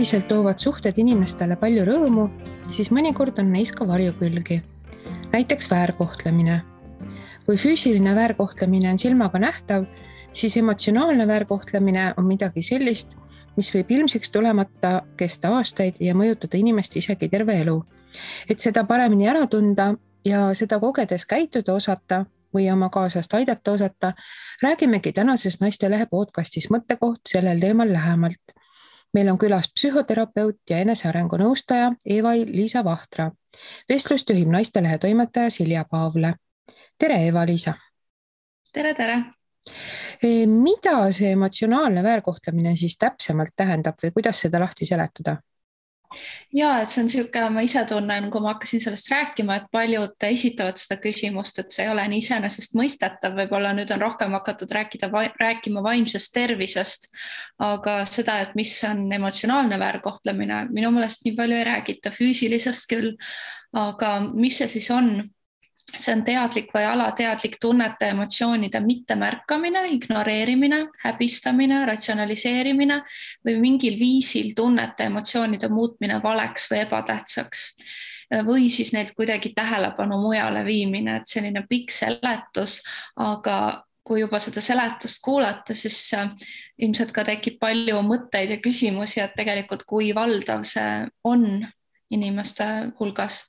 Üldiselt toovad suhted inimestele palju rõõmu, siis mõnikord on neis ka varjukülgi. Näiteks väärkohtlemine. Kui füüsiline väärkohtlemine on silmaga nähtav, siis emotsionaalne väärkohtlemine on midagi sellist, mis võib ilmsiks tulemata kesta aastaid ja mõjutada inimest isegi terve elu. Et seda paremini ära tunda ja seda kogedes käituda osata või oma kaaslast aidata osata, räägimegi tänases Naistelehe podcastis mõttekoht sellel teemal lähemalt. Meil on külas psühhoterapeut ja enesearengu nõustaja Eva-Liisa Vahtra. Vestlust juhib Naistelehe toimetaja Silja Paavle. Tere, Eva-Liisa! Tere! Mida see emotsionaalne väärkohtlemine siis täpsemalt tähendab või kuidas seda lahti seletada? Ja, et see on siuke, ma ise tunnen, kui ma hakkasin sellest rääkima, et paljud esitavad seda küsimust, et see ei ole nii iseenesest mõistetav, võib-olla nüüd on rohkem hakatud rääkima vaimsest tervisest, aga seda, et mis on emotsionaalne väärkohtlemine, minu meelest nii palju ei räägita, füüsilisest küll, aga mis see siis on? See on teadlik või alateadlik tunnete ja emotsioonide mittemärkamine, ignoreerimine, häbistamine, ratsionaliseerimine või mingil viisil tunnete ja emotsioonide muutmine valeks või ebatähtsaks. Või siis neilt kuidagi tähelepanu mujale viimine, et selline pikk seletus, aga kui juba seda seletust kuulata, siis ilmselt ka tekib palju mõtteid ja küsimusi, et tegelikult kui valdav see on inimeste hulgas.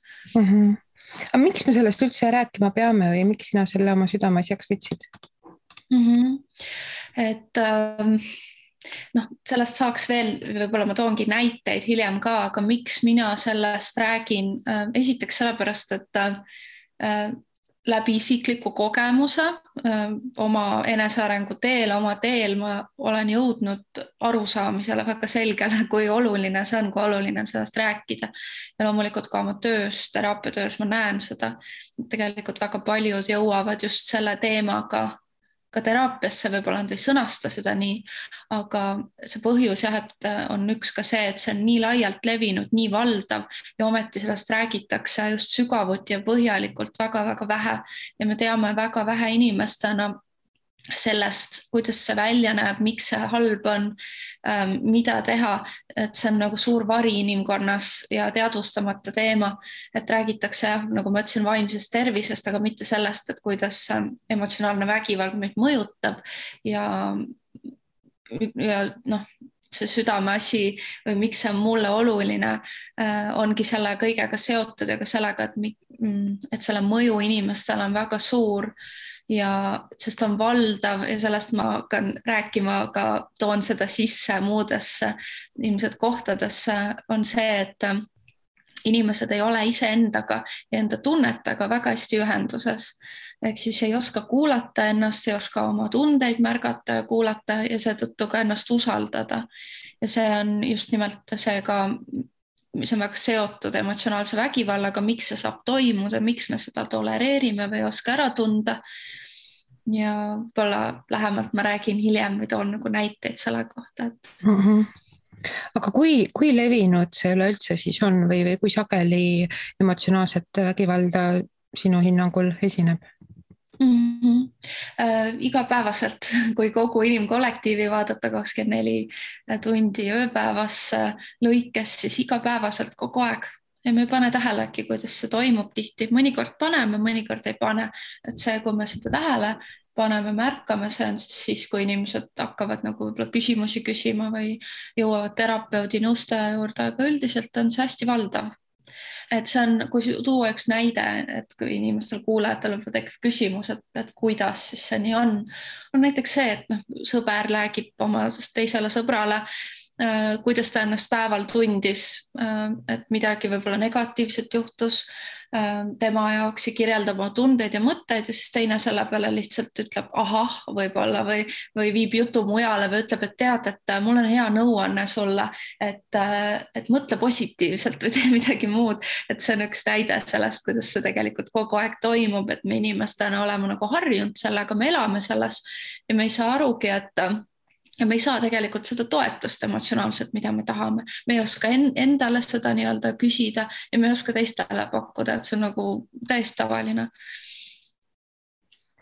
Aga miks me sellest üldse rääkima peame või miks sina selle oma südameasjaks võtsid? Et sellest saaks veel, võib-olla ma toongi näiteid hiljem ka, aga miks mina sellest räägin? Esiteks sellepärast, et läbi isikliku kogemuse oma enesearengu oma teel ma olen jõudnud arusaamisele väga selgele, kui oluline see on, kui oluline on sellest rääkida. Ja loomulikult ka oma töös, teraapiatöös ma näen seda, et tegelikult väga paljud jõuavad just selle teemaga ka teraapiasse, võib-olla nad ei sõnasta seda nii, aga see põhjus et on üks ka see, et see on nii laialt levinud, nii valdav ja ometi sellest räägitakse just sügavuti ja põhjalikult väga-väga vähe ja me teame väga vähe inimestena sellest, kuidas see välja näeb, miks see halb on, mida teha, et see on nagu suur vari inimkonnas ja teadvustamata teema, et räägitakse, nagu ma ütlesin, vaimsest tervisest, aga mitte sellest, et kuidas emotsionaalne vägivald meid mõjutab ja see südameasi või miks see on mulle oluline, ongi selle kõigega seotud ja ka sellega, et selle mõju inimestele on väga suur ja sest on valdav ja sellest ma hakkan rääkima, aga toon seda sisse muudesse ilmselt kohtadesse, on see, et inimesed ei ole iseendaga ja enda tunnetega väga hästi ühenduses. Ehk siis ei oska kuulata ennast, ei oska oma tundeid märgata ja kuulata ja seetõttu ka ennast usaldada. Ja see on just nimelt see ka, mis on väga seotud emotsionaalse vägivallaga, miks see saab toimuda, miks me seda tolereerime või ei oska ära tunda. Ja võib-olla lähemalt ma räägin hiljem või toon nagu näiteid selle kohta. Aga kui levinud see üleüldse siis on või kui sageli emotsionaalset vägivalda sinu hinnangul esineb? Igapäevaselt, kui kogu inimkollektiivi vaadata 24 tundi ööpäevas lõikes, siis igapäevaselt kogu aeg. Ja me ei pane tähelegi, kuidas see toimub tihti. Mõnikord paneme, mõnikord ei pane. Et see, kui me seda tähele paneme, märkame, see on siis, kui inimesed hakkavad nagu võib-olla küsimusi küsima või jõuavad terapeudi nõustaja juurde, aga üldiselt on see hästi valdav. Et see on, kui tuua üks näide, et kui inimestel kuulajatel tekib küsimus, et kuidas siis see nii on näiteks see, et sõber räägib oma teisele sõbrale, kuidas ta ennast päeval tundis, et midagi võib-olla negatiivset juhtus tema jaoks ja kirjeldab oma tundeid ja mõtteid ja siis teine selle peale lihtsalt ütleb ahah võib-olla või viib jutu mujale või ütleb, et tead, et mul on hea nõuanne sulle, et mõtle positiivselt või tee midagi muud. Et see on üks näide sellest, kuidas see tegelikult kogu aeg toimub, et me inimestena oleme nagu harjunud sellega, me elame selles ja me ei saa arugi, et ja me ei saa tegelikult seda toetust emotsionaalselt, mida me tahame. Me ei oska endale seda nii-öelda küsida ja me ei oska teistele pakkuda, et see on nagu täiesti tavaline.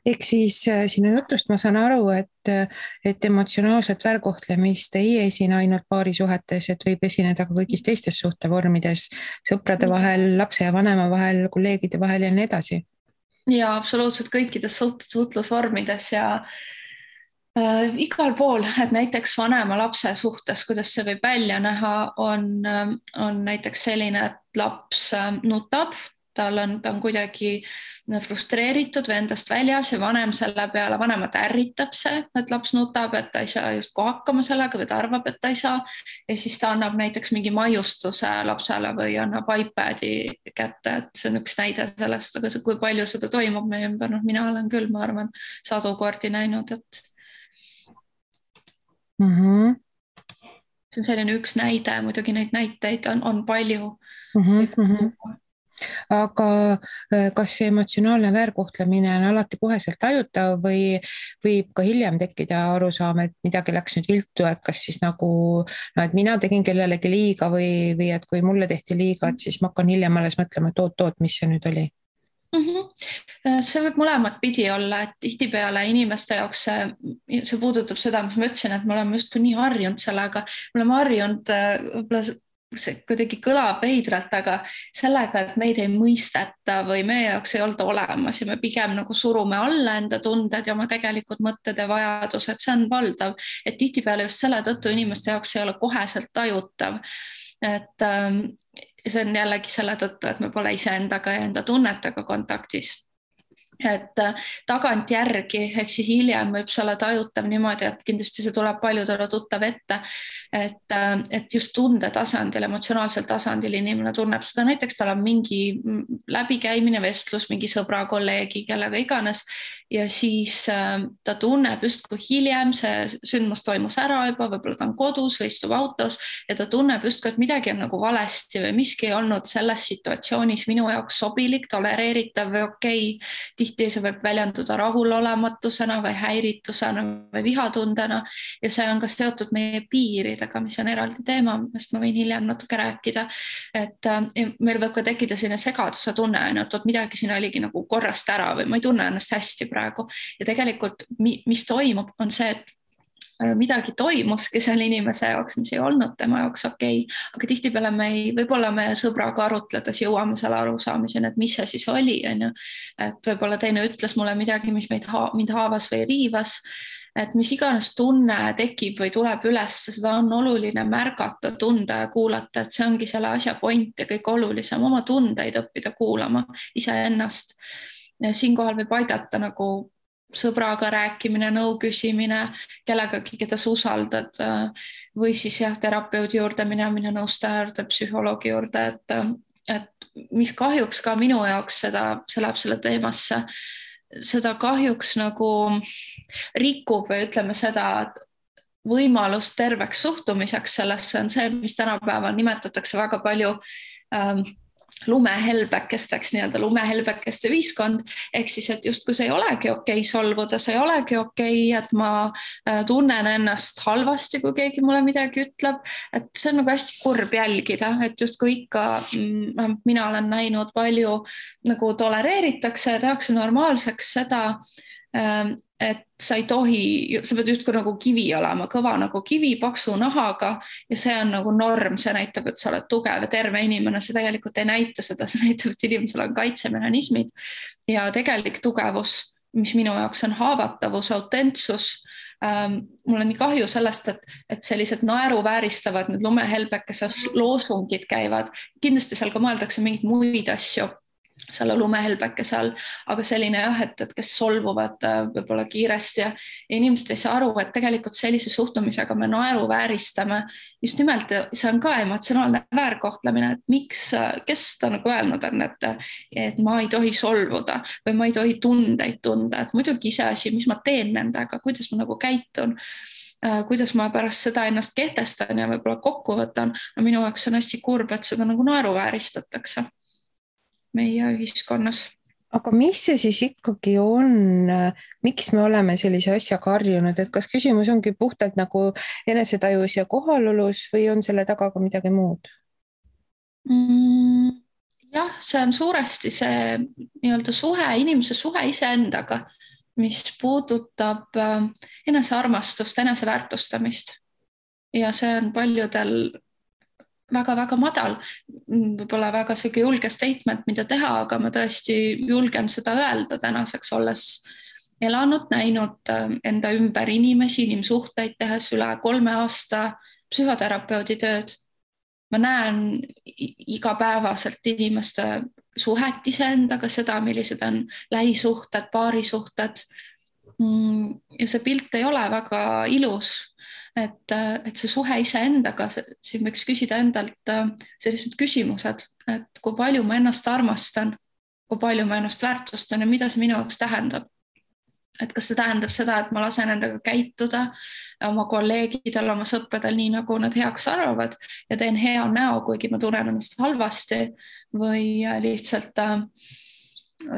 ehk siis sinu jutust ma saan aru, et emotsionaalset väärkohtlemist ei esine ainult paarisuhetes, et võib esineda ka kõigis teistes suhtevormides, sõprade vahel, lapse ja vanema vahel, kolleegide vahel ja nii edasi. Ja absoluutselt kõikides suhtlusvormides ja igal pool, et näiteks vanema lapse suhtes, kuidas see võib välja näha, on näiteks selline, et laps nutab, ta on kuidagi frustreeritud või endast väljas ja vanem selle peale, vanemat ärritab see, et laps nutab, et ta ei saa justkui hakkama sellega või ta arvab, et ta ei saa. Ja siis ta annab näiteks mingi maiustuse lapsele või annab iPadi kätte, et see on üks näide sellest, aga kui palju seda toimub meie ümber, noh, mina olen küll, ma arvan, sadu kordi näinud, et see on selline üks näide, muidugi neid näiteid on palju. Aga kas see emotsionaalne väärkohtlemine on alati koheselt tajutav või võib ka hiljem tekkida arusaam, et midagi läks nüüd viltu, et kas siis nagu, no et mina tegin kellelegi liiga või et kui mulle tehti liiga, et siis ma hakkan hiljem alles mõtlema, et oot, mis see nüüd oli? See võib mõlemat pidi olla, et tihtipeale inimeste jaoks see puudutab seda, mis ma ütlesin, et me oleme justkui nii harjunud sellega, me oleme harjunud võib-olla see kuidagi kõlab veidralt, aga sellega, et meid ei mõisteta või meie jaoks ei olda olemas ja me pigem nagu surume alla enda tunded ja oma tegelikud mõtted ja vajadused, see on valdav, et tihtipeale just selle tõttu inimeste jaoks ei ole koheselt tajutav, et see on jällegi selle tõttu, et me pole iseendaga ja enda tunnetega kontaktis. Et tagantjärgi, ehk siis hiljem võib see olla tajutav niimoodi, et kindlasti see tuleb paljudele tuttav ette, et just tunde tasandil, emotsionaalsel tasandil inimene tunneb seda, näiteks tal on mingi läbikäimine, vestlus mingi sõbra, kolleegi, kellega iganes ja siis ta tunneb justkui hiljem, see sündmus toimus ära juba, võib-olla ta on kodus või istub autos ja ta tunneb justkui, et midagi on nagu valesti või miski ei olnud selles situatsioonis minu jaoks sobilik, tolereeritav või okei. Tihti see võib väljenduda rahulolematusena või häiritusena või vihatundena ja see on ka seotud meie piiridega, mis on eraldi teema, millest ma võin hiljem natuke rääkida. Et meil võib ka tekkida selline segaduse tunne, et midagi siin oligi nagu korrast ära või ma ei tunne ennast hästi praegu ja tegelikult mis toimub, on see, et midagi toimuski selle inimese jaoks, mis ei olnud tema jaoks okei, aga tihtipeale võib-olla me sõbraga arutledes jõuame selle arusaamiseni, et mis see siis oli, on ju. Et võib-olla teine ütles mulle midagi, mis mind haavas või riivas, et mis iganes tunne tekib või tuleb üles, seda on oluline märgata, tunda ja kuulata, et see ongi selle asja point ja kõik olulisem, oma tundeid õppida kuulama iseennast. Siinkohal võib aidata nagu sõbraga rääkimine, nõu küsimine, kellegagi, keda sa usaldad või siis jah, terapeudi juurde minemine, nõustaja juurde, psühholoogi juurde, et mis kahjuks ka minu jaoks see läheb selle teemasse, seda kahjuks nagu rikub või ütleme seda, et võimalus terveks suhtumiseks sellesse on see, mis tänapäeval nimetatakse väga palju lumehelbekesteks, nii-öelda lumehelbekeste ühiskond, ehk siis, et justkui see ei olegi okei solvuda, see ei olegi okei, et ma tunnen ennast halvasti, kui keegi mulle midagi ütleb, et see on nagu hästi kurb jälgida, et justkui ikka mina olen näinud palju nagu tolereeritakse ja tehakse normaalseks seda, et sa ei tohi, sa pead justkui nagu kivi olema, kõva nagu kivi, paksu nahaga ja see on nagu norm, see näitab, et sa oled tugev ja terve inimene, see tegelikult ei näita seda, see näitab, et inimesel on kaitsemehhanismid ja tegelik tugevus, mis minu jaoks on haavatavus, autentsus. Mul on nii kahju sellest, et sellised naeruvääristavad need lumehelbekese loosungid käivad, kindlasti seal ka mõeldakse mingeid muid asju selle lumehelbekese all, aga selline jah, et kes solvuvad võib-olla kiiresti ja inimesed ei saa aru, et tegelikult sellise suhtumisega me naeruvääristame just nimelt, see on ka emotsionaalne väärkohtlemine, et miks, kes ta nagu öelnud on, et ma ei tohi solvuda või ma ei tohi tundeid tunda, et muidugi iseasi, mis ma teen nendega, kuidas ma nagu käitun, kuidas ma pärast seda ennast kehtestan ja võib-olla kokku võtan, no minu jaoks on hästi kurb, et seda nagu naeruvääristatakse meie ühiskonnas. Aga mis see siis ikkagi on, miks me oleme sellise asjaga harjunud, et kas küsimus ongi puhtalt nagu enesetajus ja kohalolus või on selle taga ka midagi muud? Jah, see on suuresti see nii-öelda suhe, inimese suhe iseendaga, mis puudutab enesearmastust, eneseväärtustamist ja see on paljudel väga-väga madal, võib-olla väga siuke julge statement, mida teha, aga ma tõesti julgen seda öelda tänaseks, olles elanud, näinud enda ümber inimesi, inimsuhteid, tehes üle 3 aasta psühhoterapeudi tööd. Ma näen igapäevaselt inimeste suhet iseendaga, seda, millised on lähisuhted, paarisuhted. Ja see pilt ei ole väga ilus. Et see suhe iseendaga, siin võiks küsida endalt sellised küsimused, et kui palju ma ennast armastan, kui palju ma ennast väärtustan ja mida see minu jaoks tähendab. Et kas see tähendab seda, et ma lasen endaga käituda oma kolleegidel, oma sõpradel nii, nagu nad heaks arvavad ja teen hea näo, kuigi ma tunnen ennast halvasti või lihtsalt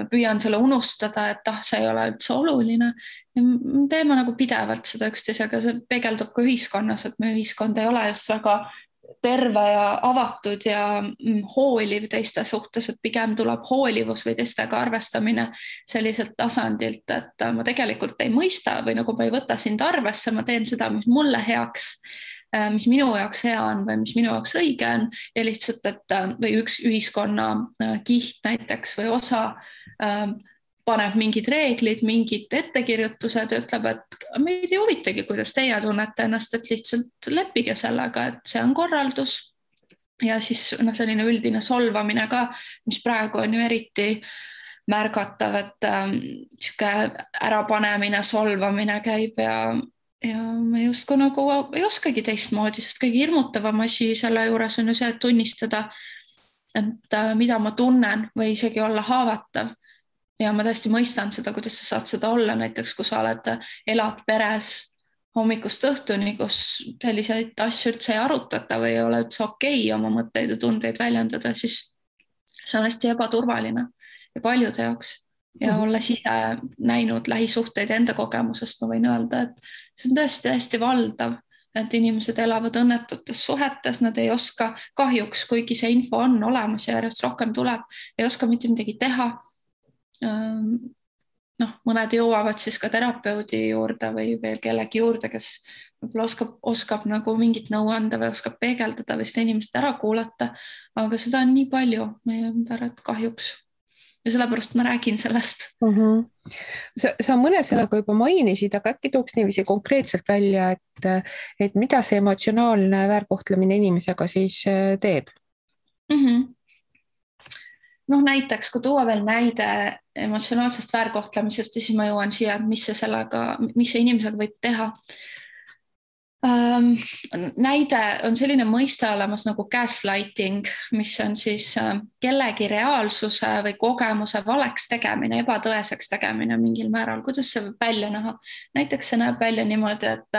püüan selle unustada, et see ei ole üldse oluline. Teeme nagu pidevalt seda üksteisega, see peegeldub ka ühiskonnas, et meie ühiskond ei ole just väga terve ja avatud ja hooliv teiste suhtes, et pigem tuleb hoolivus või teistega arvestamine selliselt tasandilt, et ma tegelikult ei mõista või nagu ma ei võta sind arvesse, ma teen seda, mis mulle heaks, mis minu jaoks hea on või mis minu jaoks õige on ja lihtsalt, et või üks ühiskonna kiht näiteks või osa paneb mingid reeglid, mingid ettekirjutused ja ütleb, et meid ei huvitagi, kuidas teie tunnete ennast, et lihtsalt leppige sellega, et see on korraldus. Ja siis selline üldine solvamine ka, mis praegu on ju eriti märgatav, et siuke ärapanemine, solvamine käib ja me justkui nagu ei oskagi teistmoodi, sest kõige hirmutavam asi selle juures on ju see, et tunnistada, et mida ma tunnen või isegi olla haavatav. Ja ma tõesti mõistan seda, kuidas sa saad seda olla, näiteks kui sa elad peres hommikust õhtuni, kus selliseid asju üldse ei arutata või ei ole üldse okei oma mõtteid ja tundeid väljendada, siis see on hästi ebaturvaline ja paljude jaoks. Ja olles ise näinud lähisuhteid enda kogemusest, ma võin öelda, et see on tõesti hästi valdav, et inimesed elavad õnnetutes suhetes, nad ei oska kahjuks, kuigi see info on olemas ja järjest rohkem tuleb, ei oska mitte midagi teha. Mõned jõuavad siis ka terapeudi juurde või veel kellegi juurde, kes võib-olla oskab nagu mingit nõu anda või oskab peegeldada või seda inimest ära kuulata, aga seda on nii palju meie ümber, et kahjuks. Ja sellepärast ma räägin sellest. Sa mõned sõnaga juba mainisid, aga äkki tooks niiviisi konkreetselt välja, et mida see emotsionaalne väärkohtlemine inimesega siis teeb? Näiteks, kui tuua veel näide emotsionaalsest väärkohtlemisest, siis ma jõuan siia, et mis see inimesega võib teha. Näide on selline mõiste olemas nagu gaslighting, mis on siis kellegi reaalsuse või kogemuse valeks tegemine, ebatõeseks tegemine mingil määral. Kuidas see võib välja näha? Näiteks see näeb välja niimoodi, et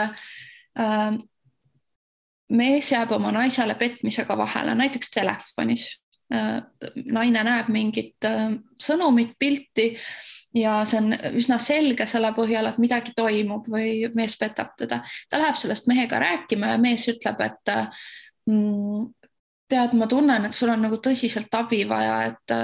mees jääb oma naisele petmisega vahele, näiteks telefonis. Naine näeb mingit sõnumit, pilti ja see on üsna selge selle põhjal, et midagi toimub või mees petab teda. Ta läheb sellest mehega rääkima ja mees ütleb, et tead, ma tunnen, et sul on nagu tõsiselt abi vaja, et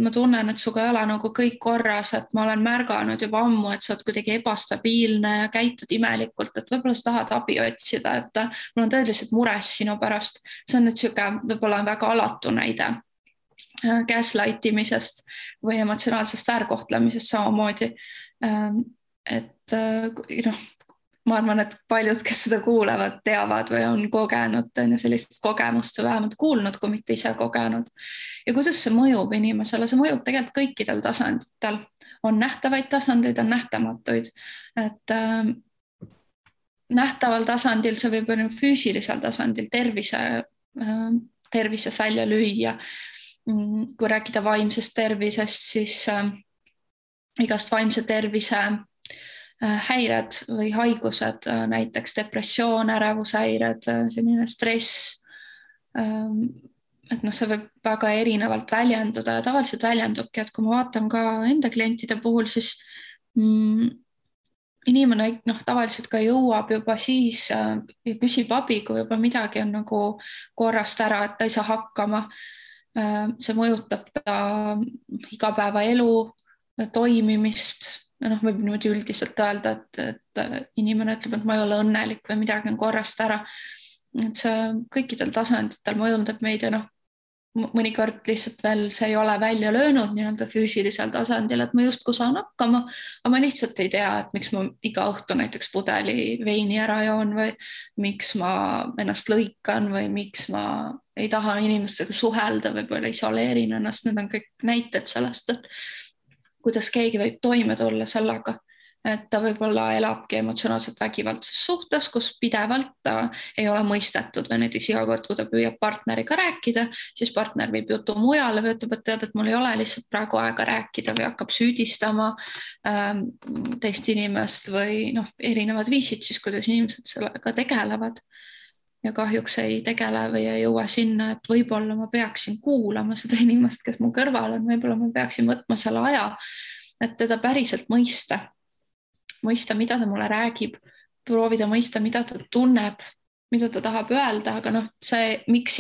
ma tunnen, et suga ei ole nagu kõik korras, et ma olen märganud juba ammu, et sa oled kuidagi ebastabiilne ja käitud imelikult, et võib-olla sa tahad abi otsida, et mul on tõeliselt mures sinu pärast. See on nüüd siuke, võib-olla on väga alatu näide gaslightimisest või emotsionaalsest väärkohtlemisest samamoodi. Et ma arvan, et paljud, kes seda kuulevad, teavad või on kogenud sellist kogemust või vähemalt kuulnud, kui mitte ise kogenud. Ja kuidas see mõjub inimesele? See mõjub tegelikult kõikidel tasanditel. On nähtavaid tasandeid, on nähtamatuid. Et nähtaval tasandil see võib olla füüsilisel tasandil tervises välja lüüa. Kui rääkida vaimsest tervisest, siis igast vaimse tervise häired või haigused, näiteks depressioon, ärevushäired, selline stress. Et see võib väga erinevalt väljenduda ja tavaliselt väljendubki, et kui ma vaatan ka enda klientide puhul, siis inimene tavaliselt ka jõuab juba siis ja küsib abi, kui juba midagi on nagu korrast ära, et ta ei saa hakkama. See mõjutab ta igapäevaelu, toimimist. Võib niimoodi üldiselt öelda, et inimene ütleb, et ma ei ole õnnelik või midagi on korrast ära. Et see kõikidel tasanditel mõjutab meid ja mõnikord lihtsalt veel see ei ole välja löönud nii-öelda füüsilisel tasandil, et ma justkui saan hakkama, aga ma lihtsalt ei tea, et miks ma iga õhtu näiteks pudeli veini ära joon või miks ma ennast lõikan või miks ma ei taha inimestega suhelda, võib-olla isoleerin ennast. Need on kõik näited sellest, et kuidas keegi võib toime tulla sellega, et ta võib-olla elabki emotsionaalselt vägivaldses suhtes, kus pidevalt ta ei ole mõistetud või näiteks iga kord, kui ta püüab partneriga rääkida, siis partner viib jutu mujale või ütleb, et tead, et mul ei ole lihtsalt praegu aega rääkida või hakkab süüdistama teist inimest või erinevad viisid siis, kuidas inimesed sellega tegelevad. Ja kahjuks ei tegele või ei jõua sinna, et võib-olla ma peaksin kuulama seda inimest, kes mu kõrval on, võib-olla ma peaksin võtma selle aja, et teda päriselt mõista, mida ta mulle räägib, proovida mõista, mida ta tunneb, mida ta tahab öelda, aga see, miks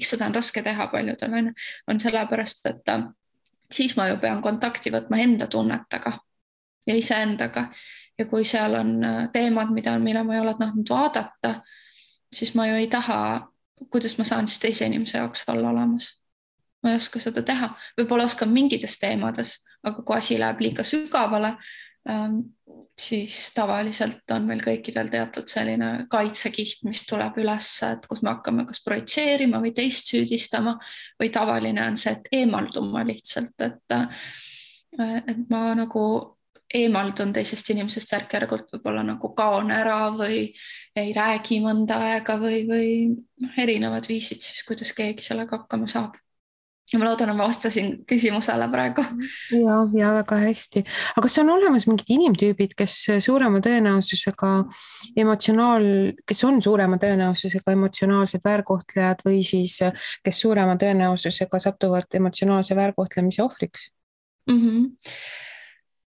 seda on raske teha paljudel on sellepärast, et siis ma ju pean kontakti võtma enda tunnetega ja iseendaga. Ja kui seal on teemad, mille ma ei ole tahtnud vaadata, siis ma ju ei taha, kuidas ma saan siis teise inimese jaoks olla olemas. Ma ei oska seda teha, võib-olla oskan mingites teemades, aga kui asi läheb liiga sügavale, siis tavaliselt on meil kõikidel teatud selline kaitsekiht, mis tuleb üles, et kus me hakkame kas projitseerima või teist süüdistama või tavaline on see, et eemalduma lihtsalt, et ma eemaldun teisest inimesest järk-järgult, võib-olla kaon ära või ei räägi mõnda aega või erinevad viisid siis, kuidas keegi sellega hakkama saab. Ja ma loodan, et ma vastasin küsimusele praegu. Ja väga hästi. Aga kas on olemas mingid inimtüübid, kes on suurema tõenäosusega emotsionaalsed väärkohtlejad või siis kes suurema tõenäosusega satuvad emotsionaalse väärkohtlemise ohvriks?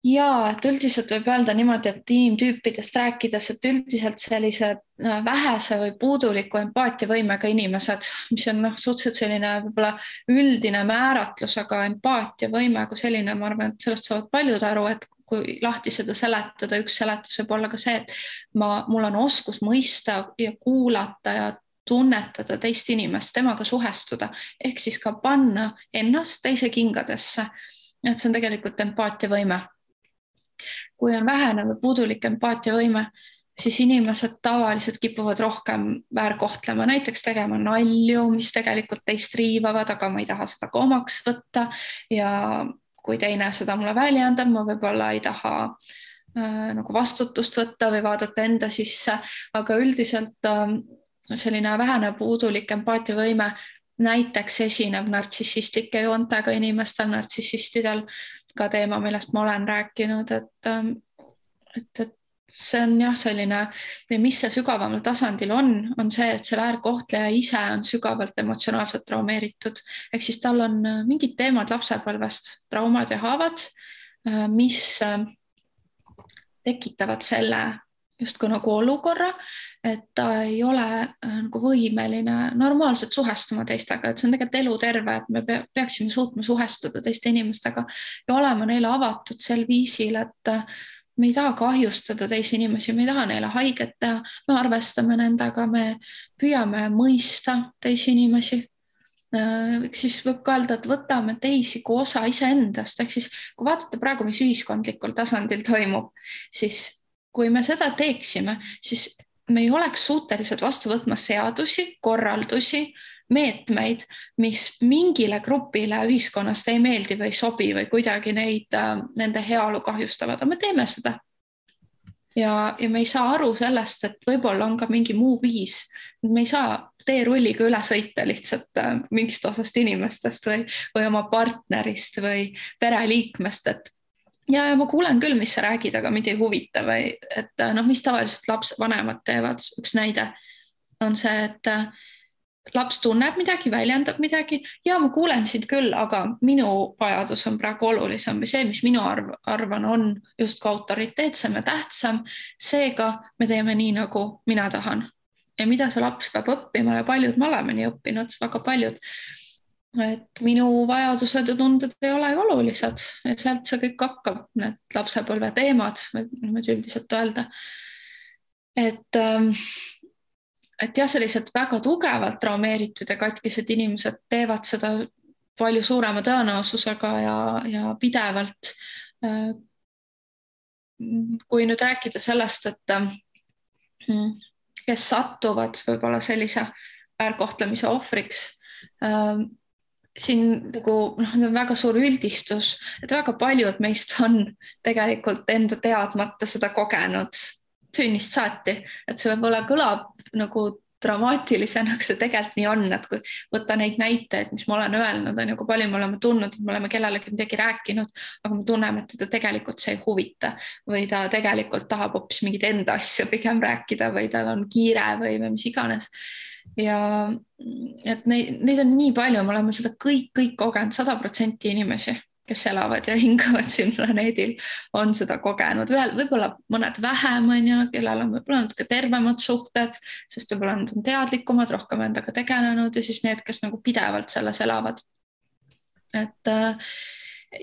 Ja, et üldiselt võib öelda niimoodi, et inimtüüpidest rääkides, et üldiselt sellised vähese või puuduliku empaatiavõimega inimesed, mis on suhteliselt selline võib-olla üldine määratlus, aga empaatiavõime kui selline, ma arvan, et sellest saavad paljud aru, et kui lahti seda seletada, üks seletus võib olla ka see, et mul on oskus mõista ja kuulata ja tunnetada teist inimest, temaga suhestuda, ehk siis ka panna ennast teise kingadesse. Et see on tegelikult empaatiavõime. Kui on vähene või puudulik empaatiavõime, siis inimesed tavaliselt kipuvad rohkem väärkohtlema, näiteks tegema nalju, mis tegelikult teist riivavad, aga ma ei taha seda ka omaks võtta ja kui teine seda mulle väljendab, ma võib-olla ei taha vastutust võtta või vaadata enda sisse, aga üldiselt selline vähene puudulik empaatiavõime näiteks esineb nartsissistlike joontega inimestel, nartsissistidel, ka teema, millest ma olen rääkinud, et see on selline, või mis see sügavamal tasandil on see, et see väärkohtleja ise on sügavalt emotsionaalselt traumeeritud, ehk siis tal on mingid teemad lapsepõlvest, traumad ja haavad, mis tekitavad selle justkui olukorra, et ta ei ole võimeline normaalselt suhestuma teistega, et see on tegelikult eluterve, et me peaksime suutma suhestuda teiste inimestega ja olema neile avatud sel viisil, et me ei taha kahjustada teisi inimesi, me ei taha neile haiget teha, me arvestame nendega, me püüame mõista teisi inimesi. Siis võib ka öelda, et võtame teisi kui osa iseendast, ehk siis kui vaatate praegu, mis ühiskondlikul tasandil toimub, siis kui me seda teeksime, siis me ei oleks suutelised vastu võtma seadusi, korraldusi, meetmeid, mis mingile grupile ühiskonnast ei meeldi või ei sobi või kuidagi nende heaolu kahjustavad, aga me teeme seda. Ja me ei saa aru sellest, et võib-olla on ka mingi muu viis. Me ei saa teerulliga üle sõita lihtsalt mingist osast inimestest või oma partnerist või pereliikmest, et ja ma kuulen küll, mis sa räägid, aga mind ei huvita või et mis tavaliselt vanemad teevad. Üks näide on see, et laps tunneb midagi, väljendab midagi ja ma kuulen sind küll, aga minu vajadus on praegu olulisem või see, mis minu arvan on justkui autoriteetsem ja tähtsam. Seega me teeme nii, nagu mina tahan. Ja mida see laps peab õppima ja paljud me oleme nii õppinud, väga paljud et minu vajadused ja tunded ei ole ju olulised ja sealt see kõik hakkab, need lapsepõlve teemad, võib niimoodi üldiselt öelda. Et jah, sellised väga tugevalt traumeeritud ja katkised inimesed teevad seda palju suurema tõenäosusega ja pidevalt. Kui nüüd rääkida sellest, et kes satuvad võib-olla sellise väärkohtlemise ohvriks, siin nagu on väga suur üldistus, et väga paljud meist on tegelikult enda teadmata seda kogenud sünnist saati, et see võib-olla kõlab nagu dramaatilisena, aga see tegelikult nii on, et kui võtta neid näiteid, mis ma olen öelnud, on ju, kui palju me oleme tundnud, et me oleme kellelegi midagi rääkinud, aga me tunneme, et teda tegelikult see ei huvita või ta tegelikult tahab hoopis mingit enda asju pigem rääkida või tal on kiire või mis iganes. Ja et neid on nii palju, me oleme seda kõik kogenud, 100% inimesi, kes elavad ja hingavad siin planeedil, on seda kogenud. Võib-olla mõned vähem, on ju, kellel on võib-olla natuke tervemad suhted, sest võib-olla nad on teadlikumad, rohkem endaga tegelenud ja siis need, kes nagu pidevalt selles elavad. Et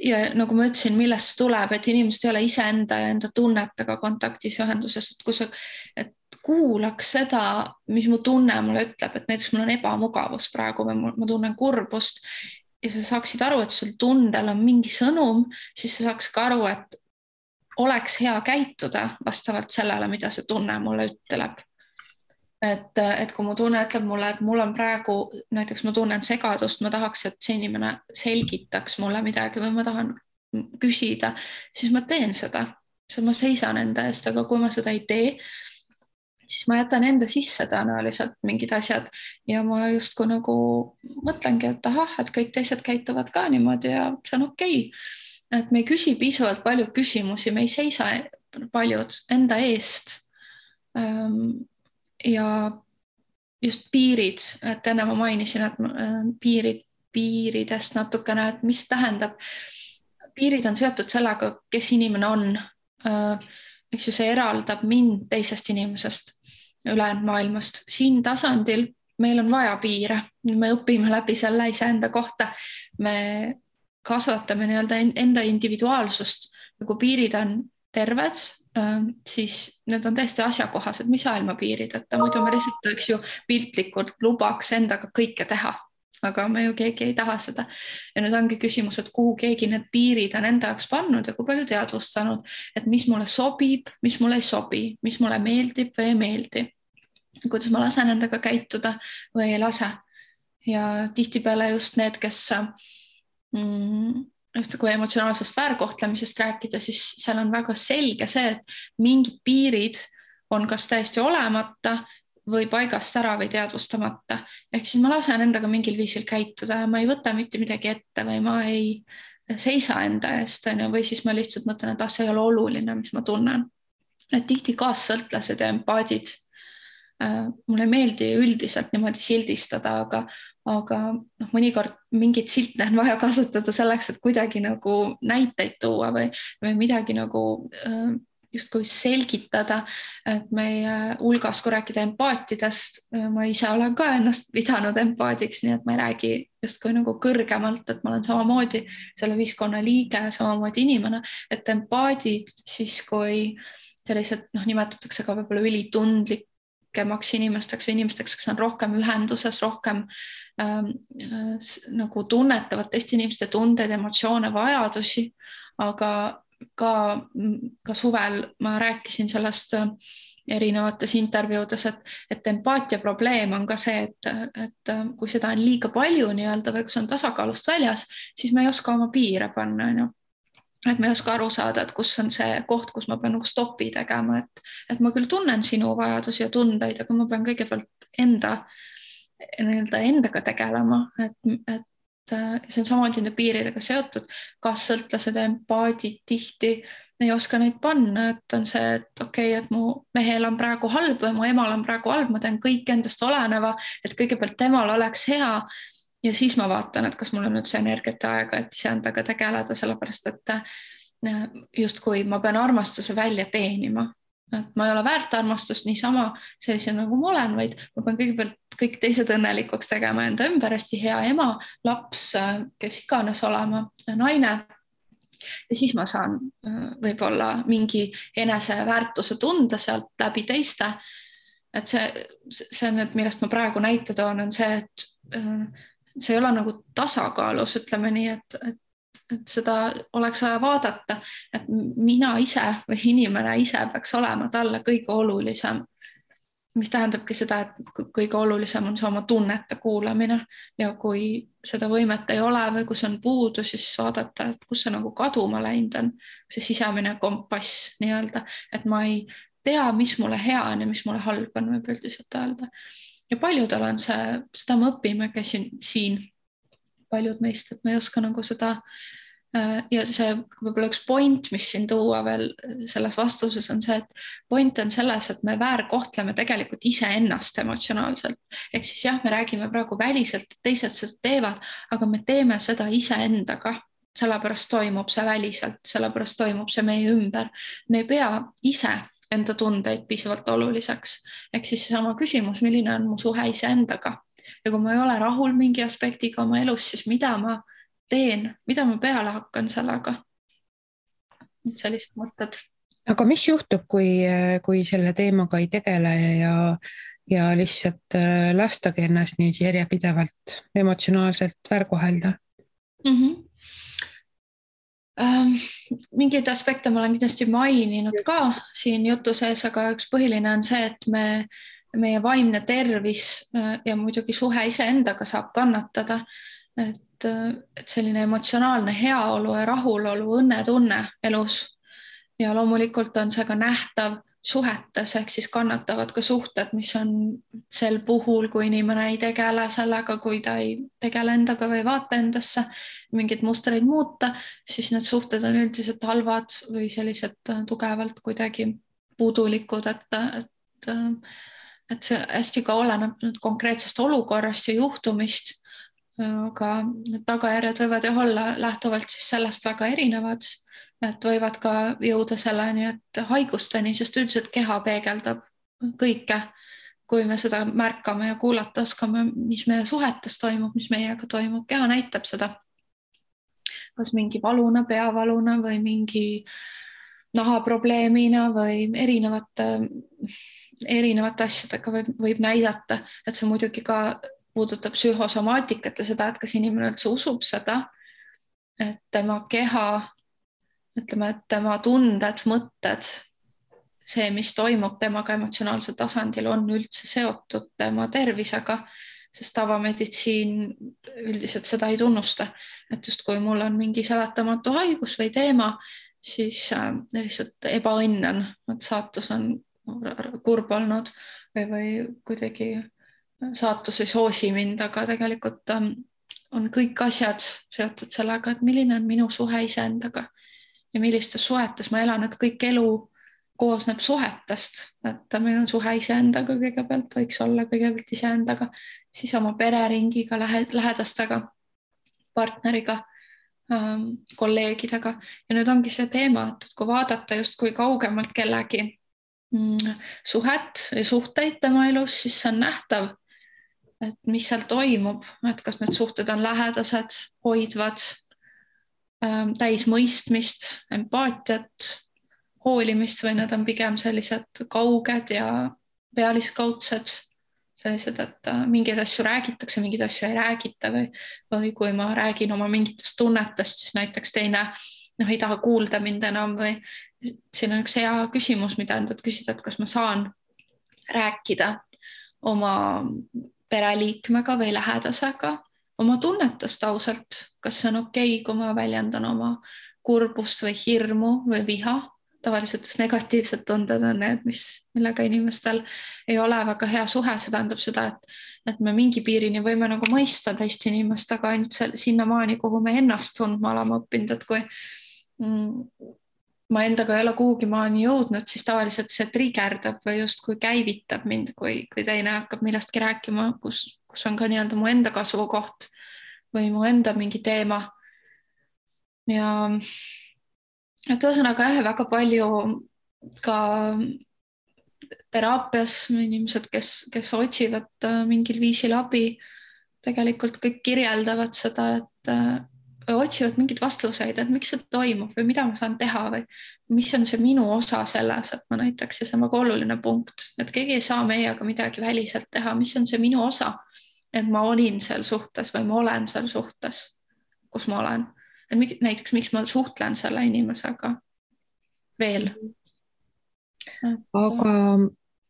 ja nagu ma ütlesin, millest see tuleb, et inimesed ei ole iseenda ja enda tunnetega kontaktis ühenduses, et kui sa kuulaks seda, mis mu tunne mulle ütleb, et näiteks mul on ebamugavus praegu või ma tunnen kurbust ja sa saaksid aru, et sul tundel on mingi sõnum, siis sa saaks ka aru, et oleks hea käituda vastavalt sellele, mida see tunne mulle ütleb. Et kui mu tunne ütleb mulle, et mul on praegu, näiteks ma tunnen segadust, ma tahaks, et see inimene selgitaks mulle midagi või ma tahan küsida, siis ma teen seda. Ma seisan enda eest, aga kui ma seda ei tee, siis ma jätan enda sisse tõenäoliselt mingid asjad ja ma justkui nagu mõtlengi, et ahah, et kõik teised käituvad ka niimoodi ja see on okei. Et me ei küsi piisavalt palju küsimusi, me ei seisa paljud enda eest. Ja just piirid, et enne ma mainisin, et piiridest natukene, et mis tähendab. Piirid on seotud sellega, kes inimene on. Eks ju, see eraldab mind teisest inimesest, ülejäänud maailmast. Siin tasandil meil on vaja piire, me õpime läbi selle iseenda kohta, me kasvatame nii-öelda enda individuaalsust, kui piirid on terved, siis need on täiesti asjakohased, mis ilmapiirid, et muidu me lihtsalt eks ju piltlikult lubaks endaga kõike teha, aga me ju keegi ei taha seda. Ja nüüd ongi küsimus, et kuhu keegi need piirid on enda jaoks pannud ja kui palju teadvustanud, et mis mulle sobib, mis mulle ei sobi, mis mulle meeldib või ei meeldi, kuidas ma lasen endaga käituda või ei lase. Ja tihtipeale just need, kes just kui emotsionaalsest väärkohtlemisest rääkida, siis seal on väga selge see, et mingid piirid on kas täiesti olemata või paigast ära või teadvustamata. Ehk siis ma lasen endaga mingil viisil käituda ja ma ei võta mitte midagi ette või ma ei seisa enda eest, või siis ma lihtsalt mõtlen, et see ei ole oluline, mis ma tunnen. Et tihti kaassõltlased ja empaadid, mulle ei meeldi üldiselt niimoodi sildistada, aga mõnikord mingit silte on vaja kasutada selleks, et kuidagi nagu näiteid tuua või midagi nagu justkui selgitada, et meie hulgas, kui rääkida empaatidest, ma ise olen ka ennast pidanud empaadiks, nii et ma ei räägi justkui nagu kõrgemalt, et ma olen samamoodi selle ühiskonna liige, samamoodi inimene, et empaadid siis, kui sellised nimetatakse ka võib-olla ülitundlikemaks inimesteks või inimesteks, kes on rohkem ühenduses, rohkem nagu tunnetavad teiste inimeste tundeid, emotsioone, vajadusi, aga ka suvel ma rääkisin sellest erinevates intervjuudes, et empaatia probleem on ka see, et kui seda on liiga palju nii-öelda või kui see on tasakaalust väljas, siis me ei oska oma piire panna, on ju. Et me ei oska aru saada, et kus on see koht, kus ma pean nagu stopi tegema, et ma küll tunnen sinu vajadusi ja tundeid, aga ma pean kõigepealt endaga tegelema, et see on samamoodi nende piiridega seotud, kas sõltlased ja empaadid tihti ei oska neid panna, et on see, et okei, et mu mehel on praegu halb või mu emal on praegu halb, ma teen kõik endast oleneva, et kõigepealt temal oleks hea ja siis ma vaatan, et kas mul on nüüd see energiat ja aega, et iseendaga tegeleda, sellepärast et justkui ma pean armastuse välja teenima. et ma ei ole väärt armastust niisama sellise nagu ma olen, vaid ma pean kõigepealt kõik teised õnnelikuks tegema enda ümber, hästi hea ema, laps, kes iganes olema, naine. Ja siis ma saan võib-olla mingi eneseväärtuse tunda sealt läbi teiste. Et see on, et millest ma praegu näite toon, on see, et see ei ole nagu tasakaalus, ütleme nii, et seda oleks vaja vaadata, et mina ise või inimene ise peaks olema talle kõige olulisem. Mis tähendabki seda, et kõige olulisem on see oma tunnete kuulamine ja kui seda võimet ei ole või kus on puudu, siis vaadata, et kus see nagu kaduma läinud on, see sisemine kompass nii-öelda, et ma ei tea, mis mulle hea on ja mis mulle halb on, võib üldiselt öelda. Ja paljudel on see, seda me õpime, käisin siin paljud meist, et me ei oska nagu seda ja see võib-olla üks point, mis siin tuua veel selles vastuses on see, et point on selles, et me väärkohtleme tegelikult iseennast emotsionaalselt. Ehk siis jah, me räägime praegu väliselt, et teised seda teevad, aga me teeme seda iseendaga. Sellepärast toimub see väliselt, sellepärast toimub see meie ümber. Me ei pea ise enda tundeid piisavalt oluliseks. Ehk siis sama küsimus, milline on mu suhe iseendaga? Ja kui ma ei ole rahul mingi aspektiga oma elus, siis mida ma teen, mida ma peale hakkan sellega? Sellised mõtted. Aga mis juhtub, kui selle teemaga ei tegele ja lihtsalt lastagi ennast nii järjepidevalt emotsionaalselt väärkohelda? Mingeid aspekte ma olen kindlasti maininud ka siin jutu sees, aga üks põhiline on see, et meie vaimne tervis ja muidugi suhe iseendaga saab kannatada. Et selline emotsionaalne heaolu ja rahulolu, õnnetunne elus. Ja loomulikult on see ka nähtav suhetes, ehk siis kannatavad ka suhted, mis on sel puhul, kui inimene ei tegele sellega, kui ta ei tegele endaga või vaata endasse, mingeid mustreid muuta, siis need suhted on üldiselt halvad või sellised tugevalt kuidagi puudulikud, et see hästi ka oleneb konkreetsest olukorrast ja juhtumist. Aga need tagajärjed võivad ju olla lähtuvalt siis sellest väga erinevad, et võivad ka jõuda selleni, et haigusteni, sest üldiselt keha peegeldab kõike, kui me seda märkame ja kuulata oskame, mis meie suhetes toimub, mis meiega toimub. Keha näitab seda, kas mingi valuna, peavaluna või mingi nahaprobleemina või erinevate asjadega võib näidata, et see muidugi ka puudutab psühhosomaatikat ja seda, et kas inimene üldse usub seda, et tema keha, ütleme, et tema tunded, mõtted, see, mis toimub temaga emotsionaalsel tasandil, on üldse seotud tema tervisega, sest tavameditsiin üldiselt seda ei tunnusta. Et just kui mul on mingi seletamatu haigus või teema, siis lihtsalt ebaõnn on, et saatus on kurb olnud või kuidagi saatus ei soosi mind, aga tegelikult on kõik asjad seotud sellega, et milline on minu suhe iseendaga ja millistes suhetes ma elan, et kõik elu koosneb suhetest, et meil on suhe iseendaga kõigepealt, võiks olla kõigepealt iseendaga, siis oma pereringiga, lähedastega, partneriga, kolleegidega ja nüüd ongi see teema, et kui vaadata just kui kaugemalt kellegi suhet ja suhteid tema elus, siis see on nähtav, et mis seal toimub, et kas need suhted on lähedased, hoidvad, täis mõistmist, empaatiat, hoolimist või need on pigem sellised kauged ja pealiskaudsed, sellised, et mingeid asju räägitakse, mingeid asju ei räägita või kui ma räägin oma mingitest tunnetest, siis näiteks teine ei taha kuulda mind enam või siin on üks hea küsimus, mida endalt küsida, et kas ma saan rääkida oma pereliikmega või lähedasega oma tunnetest ausalt, kas see on okei, kui ma väljendan oma kurbust või hirmu või viha. Tavaliselt negatiivsed tunded on need, millega inimestel ei ole väga hea suhe, see tähendab seda, et me mingi piirini võime nagu mõista teist inimest, aga ainult sinnamaani, kuhu me ennast tundma oleme õppinud, et kui ma endaga ei ole kuhugi maani jõudnud, siis tavaliselt see trigerdab või justkui käivitab mind, kui teine hakkab millestki rääkima, kus on ka nii-öelda mu enda kasvukoht või mu enda mingi teema. Ja et ühesõnaga väga palju ka teraapias inimesed, kes otsivad mingil viisil abi, tegelikult kõik kirjeldavad seda, et otsivad mingeid vastuseid, et miks see toimub või mida ma saan teha või mis on see minu osa selles, et ma näiteks, ja see on väga oluline punkt, et keegi ei saa meiega midagi väliselt teha, mis on see minu osa, et ma olin seal suhtes või ma olen seal suhtes, kus ma olen. Et näiteks, miks ma suhtlen selle inimesega veel.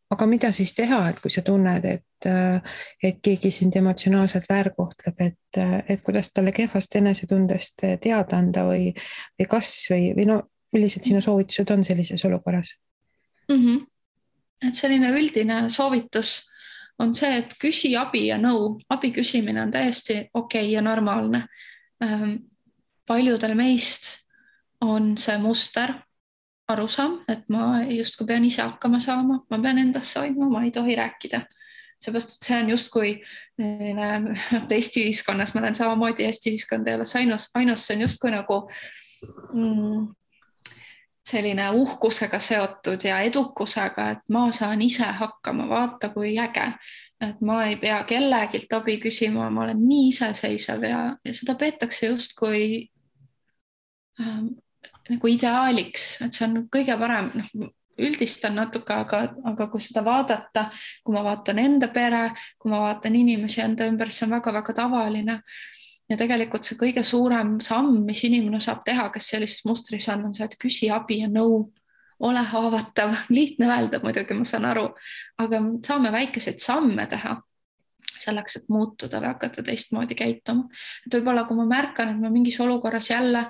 Aga mida siis teha, et kui sa tunned, et keegi sind emotsionaalselt väärkohtleb, et kuidas talle kehvast enesetundest teada anda või no millised sinu soovitused on sellises olukorras? Et selline üldine soovitus on see, et küsi abi ja nõu. Abi küsimine on täiesti okei ja normaalne. Paljudel meist on see muster, arusaam, et ma justkui pean ise hakkama saama, ma pean endasse hoidma, ma ei tohi rääkida. Seepärast, et see on justkui Eesti ühiskonnas, ma olen samamoodi, Eesti ühiskond ei ole ainus, see on justkui nagu selline uhkusega seotud ja edukusega, et ma saan ise hakkama, vaata kui äge, et ma ei pea kellegilt abi küsima, ma olen nii iseseisev ja seda peetakse justkui nagu ideaaliks, et see on kõige parem, üldistan natuke, aga kui seda vaadata, kui ma vaatan enda pere, kui ma vaatan inimesi enda ümber, see on väga-väga tavaline. Ja tegelikult see kõige suurem samm, mis inimene saab teha, kes sellises mustris on see, et küsi abi ja nõu, ole haavatav, lihtne öelda muidugi, ma saan aru, aga saame väikeseid samme teha selleks, et muutuda või hakata teistmoodi käituma. Et võib-olla, kui ma märkan, et ma mingis olukorras jälle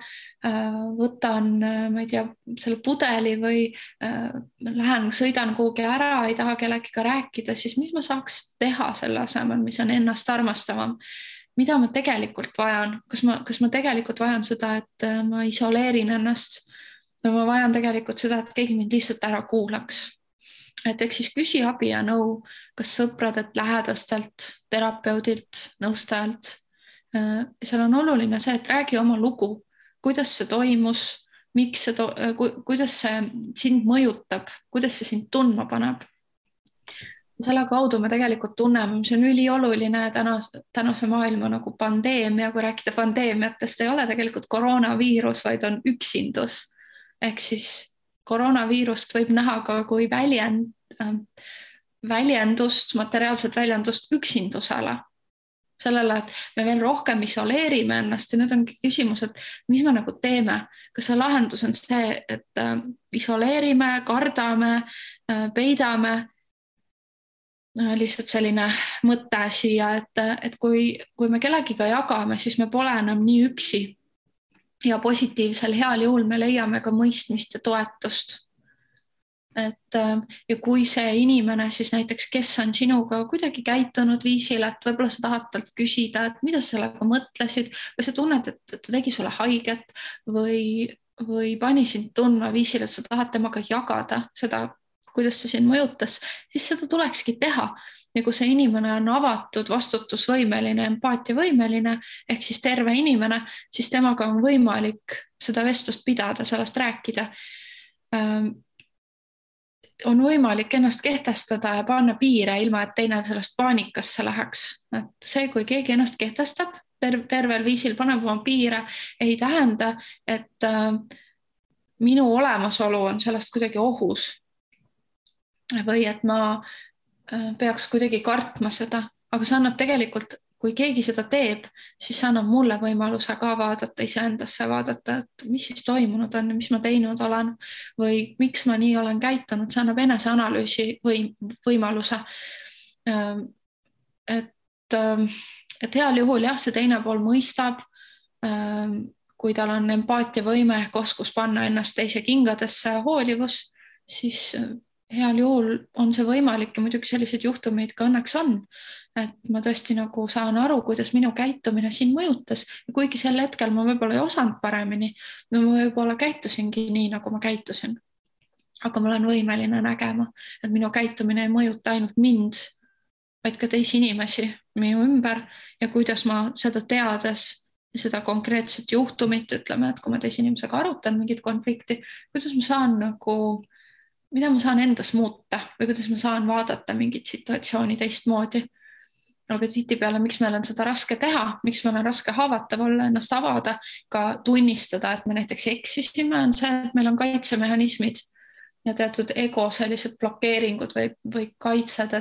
võtan, ma ei tea, selle pudeli või lähen, sõidan kuhugi ära, ei taha kellegiga rääkida, siis mis ma saaks teha selle asemel, mis on ennast armastavam? Mida ma tegelikult vajan? Kas ma tegelikult vajan seda, et ma isoleerin ennast või ma vajan tegelikult seda, et keegi mind lihtsalt ära kuulaks? Et eks siis küsi abi ja nõu, kas sõpradelt, lähedastelt, terapeudilt, nõustajalt. Seal on oluline see, et räägi oma lugu, kuidas see toimus, kuidas see sind mõjutab, kuidas see sind tundma paneb. Selle kaudu me tegelikult tunneme, mis on ülioluline tänase maailma nagu pandeemia, kui rääkida pandeemiatest, ei ole tegelikult koroonaviirus, vaid on üksindus. Ehk siis koroonaviirust võib näha ka kui väljendust, materiaalset väljendust üksindusele. Sellele, et me veel rohkem isoleerime ennast ja nüüd ongi küsimus, et mis me nagu teeme. Kas see lahendus on see, et isoleerime, kardame, peidame? Lihtsalt selline mõte siia, et kui me kellegiga jagame, siis me pole enam nii üksi. Ja positiivsel heal juhul me leiame ka mõistmist ja toetust. Ja kui see inimene siis näiteks, kes on sinuga kuidagi käitunud viisil, et võib-olla sa tahad talt küsida, et mida sa sellega mõtlesid või sa tunned, et ta tegi sulle haiget või pani sind tundma viisil, et sa tahad temaga jagada seda, kuidas see sind mõjutas, siis seda tulekski teha. Ja kui see inimene on avatud, vastutusvõimeline, empaatiavõimeline ehk siis terve inimene, siis temaga on võimalik seda vestlust pidada, sellest rääkida. On võimalik ennast kehtestada ja panna piire ilma, et teine sellest paanikasse läheks. Et see, kui keegi ennast kehtestab, tervel viisil paneb oma piire, ei tähenda, et minu olemasolu on sellest kuidagi ohus. Või et ma peaks kuidagi kartma seda, aga see annab tegelikult, kui keegi seda teeb, siis see annab mulle võimaluse ka vaadata iseendasse, vaadata, et mis siis toimunud on ja mis ma teinud olen või miks ma nii olen käitunud, see annab eneseanalüüsi võimaluse. Et heal juhul jah, see teine pool mõistab, kui tal on empaatiavõime ehk oskus panna ennast teise kingadesse, hoolivus, siis heal juhul on see võimalik ja muidugi selliseid juhtumeid ka õnneks on, et ma tõesti nagu saan aru, kuidas minu käitumine siin mõjutas ja kuigi sel hetkel ma võib-olla ei osanud paremini, ma võib-olla käitusingi nii, nagu ma käitusin. Aga ma olen võimeline nägema, et minu käitumine ei mõjuta ainult mind, vaid ka teisi inimesi minu ümber ja kuidas ma seda teades ja seda konkreetset juhtumit, ütleme, et kui ma teise inimesega arutan mingit konflikti, kuidas ma saan nagu mida ma saan endas muuta või kuidas ma saan vaadata mingit situatsiooni teistmoodi. Aga tihtipeale, miks meil on seda raske teha, miks meil on raske haavatav olla, ennast avada, ka tunnistada, et me näiteks eksisime, on see, et meil on kaitsemehhanismid ja teatud ego sellised blokeeringud või kaitsed,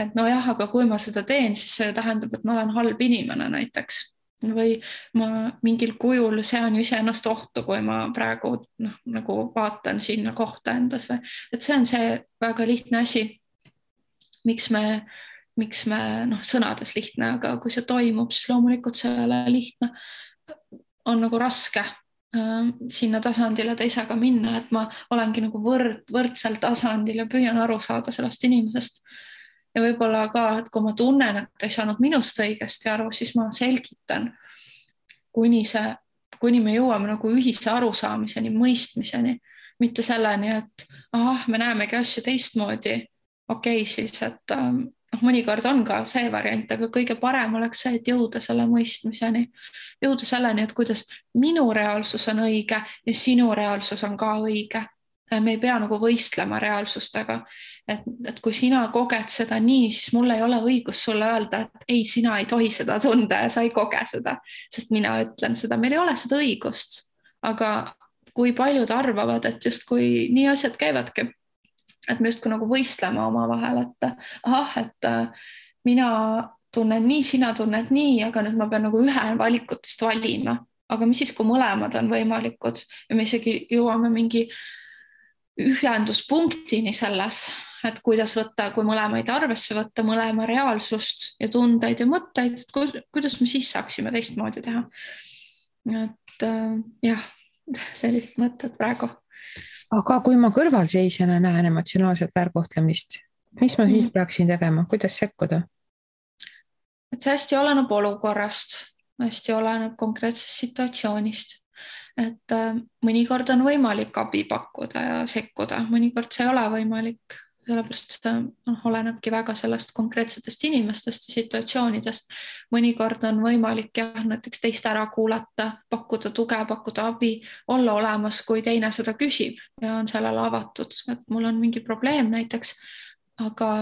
et nojah, aga kui ma seda teen, siis see tähendab, et ma olen halb inimene näiteks. Või ma mingil kujul sean ju iseennast ohtu, kui ma praegu nagu vaatan sinna kohta endas või, et see on see väga lihtne asi, miks me sõnades lihtne, aga kui see toimub, siis loomulikult see ei ole lihtne. On nagu raske sinna tasandile teisega minna, et ma olengi nagu võrdsel tasandil ja püüan aru saada sellest inimesest. Ja võib-olla ka, et kui ma tunnen, et ei saanud minust õigesti aru, siis ma selgitan, kuni me jõuame nagu ühise arusaamiseni, mõistmiseni, mitte selleni, et me näemegi asju teistmoodi. Okei, siis, et mõnikord on ka see variant, aga kõige parem oleks see, et jõuda selle mõistmiseni, jõuda selleni, et kuidas minu reaalsus on õige ja sinu reaalsus on ka õige. Me ei pea nagu võistlema reaalsustega, et kui sina koged seda nii, siis mul ei ole õigus sulle öelda, et ei, sina ei tohi seda tunda ja sa ei koge seda, sest mina ütlen seda, meil ei ole seda õigust. Aga kui paljud arvavad, et just kui nii asjad käivadki, et me justkui nagu võistleme oma vahel, et mina tunnen nii, sina tunned nii, aga nüüd ma pean nagu ühe valikutest valima. Aga mis siis, kui mõlemad on võimalikud ja me isegi jõuame mingi ühenduspunktini selles, et kuidas võtta, kui mõlemaid arvesse võtta, mõlema reaalsust ja tundeid ja mõtteid, et kuidas me siis saaksime teistmoodi teha. Et jah, sellised mõtted praegu. Aga kui ma kõrvalseisjana näen emotsionaalset väärkohtlemist, mis ma siis peaksin tegema, kuidas sekkuda? Et see hästi oleneb olukorrast, hästi oleneb konkreetsest situatsioonist. Et mõnikord on võimalik abi pakkuda ja sekkuda, mõnikord see ei ole võimalik, sellepärast see olenebki väga sellest konkreetsetest inimestest ja situatsioonidest. Mõnikord on võimalik näiteks teist ära kuulata, pakkuda tuge, pakkuda abi, olla olemas, kui teine seda küsib ja on sellele avatud, et mul on mingi probleem näiteks, aga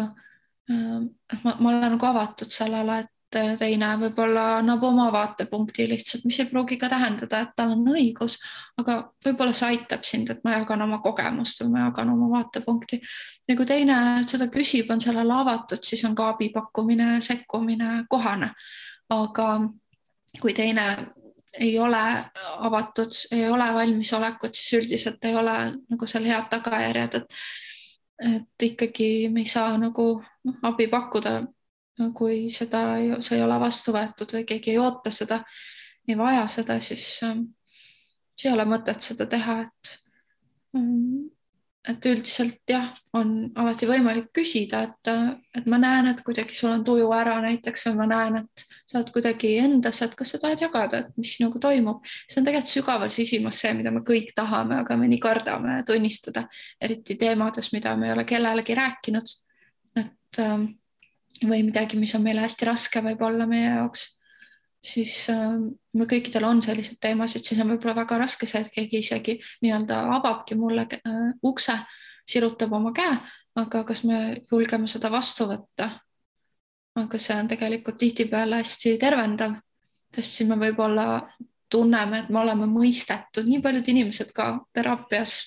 ma olen nagu avatud sellele, et teine võib-olla annab oma vaatepunkti lihtsalt, mis ei pruugi ka tähendada, et tal on õigus, aga võib-olla see aitab sind, et ma jagan oma kogemust või ma jagan oma vaatepunkti. Ja kui teine seda küsib, on sellele avatud, siis on ka abi pakkumine, sekkumine kohane. Aga kui teine ei ole avatud, ei ole valmisolekut, siis üldiselt ei ole nagu seal head tagajärjed, et ikkagi me ei saa nagu abi pakkuda, kui see ei ole vastu võetud või keegi ei oota seda, ei vaja seda, siis ei ole mõtet seda teha, et üldiselt jah, on alati võimalik küsida, et ma näen, et kuidagi sul on tuju ära näiteks või ma näen, et sa oled kuidagi endas, et kas sa tahad jagada, et mis nagu toimub. See on tegelikult sügaval sisimas see, mida me kõik tahame, aga me nii kardame tunnistada, eriti teemades, mida me ei ole kellelegi rääkinud, et või midagi, mis on meile hästi raske võib-olla meie jaoks, siis meil kõikidel on sellised teemasid, siis on võib-olla väga raske see, et keegi isegi nii-öelda avabki mulle ukse, sirutab oma käe, aga kas me julgeme seda vastu võtta? Aga see on tegelikult tihtipeale hästi tervendav, sest siis me võib-olla tunneme, et me oleme mõistetud, nii paljud inimesed ka teraapias,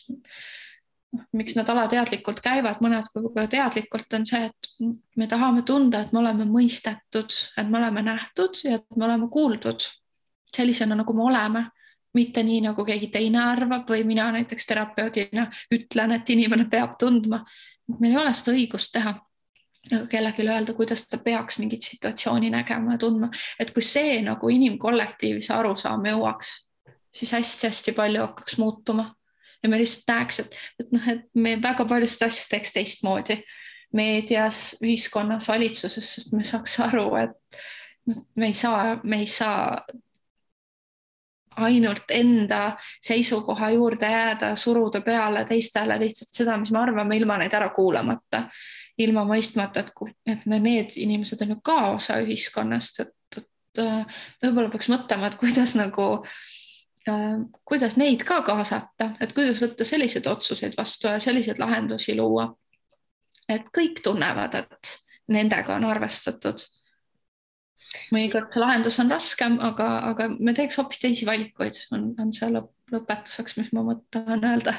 miks nad alateadlikult käivad, mõned võib-olla teadlikult on see, et me tahame tunda, et me oleme mõistetud, et me oleme nähtud ja et me oleme kuuldud sellisena, nagu me oleme, mitte nii, nagu keegi teine arvab või mina näiteks terapeudina ütlen, et inimene peab tundma. Meil ei ole seda õigust teha, aga kellelegi öelda, kuidas ta peaks mingit situatsiooni nägema ja tundma, et kui see nagu inimkollektiivi see arusaam jõuaks, siis hästi-hästi palju hakkaks muutuma. Ja me lihtsalt näeks, et me väga paljust asju teeks teistmoodi meedias, ühiskonnas, valitsuses, sest me saaks aru, et me ei saa ainult enda seisukoha juurde jääda, suruda peale teistele lihtsalt seda, mis me arvame, ilma neid ära kuulamata, ilma mõistmata, et need inimesed on ju ka osa ühiskonnast, et võib-olla peaks mõtlema, et kuidas nagu kuidas neid ka kaasata, et kuidas võtta selliseid otsuseid vastu ja selliseid lahendusi luua, et kõik tunnevad, et nendega on arvestatud. Mõnikord lahendus on raskem, aga me teeks hoopis teisi valikuid, on see lõpetuseks, mis ma mõtlen öelda.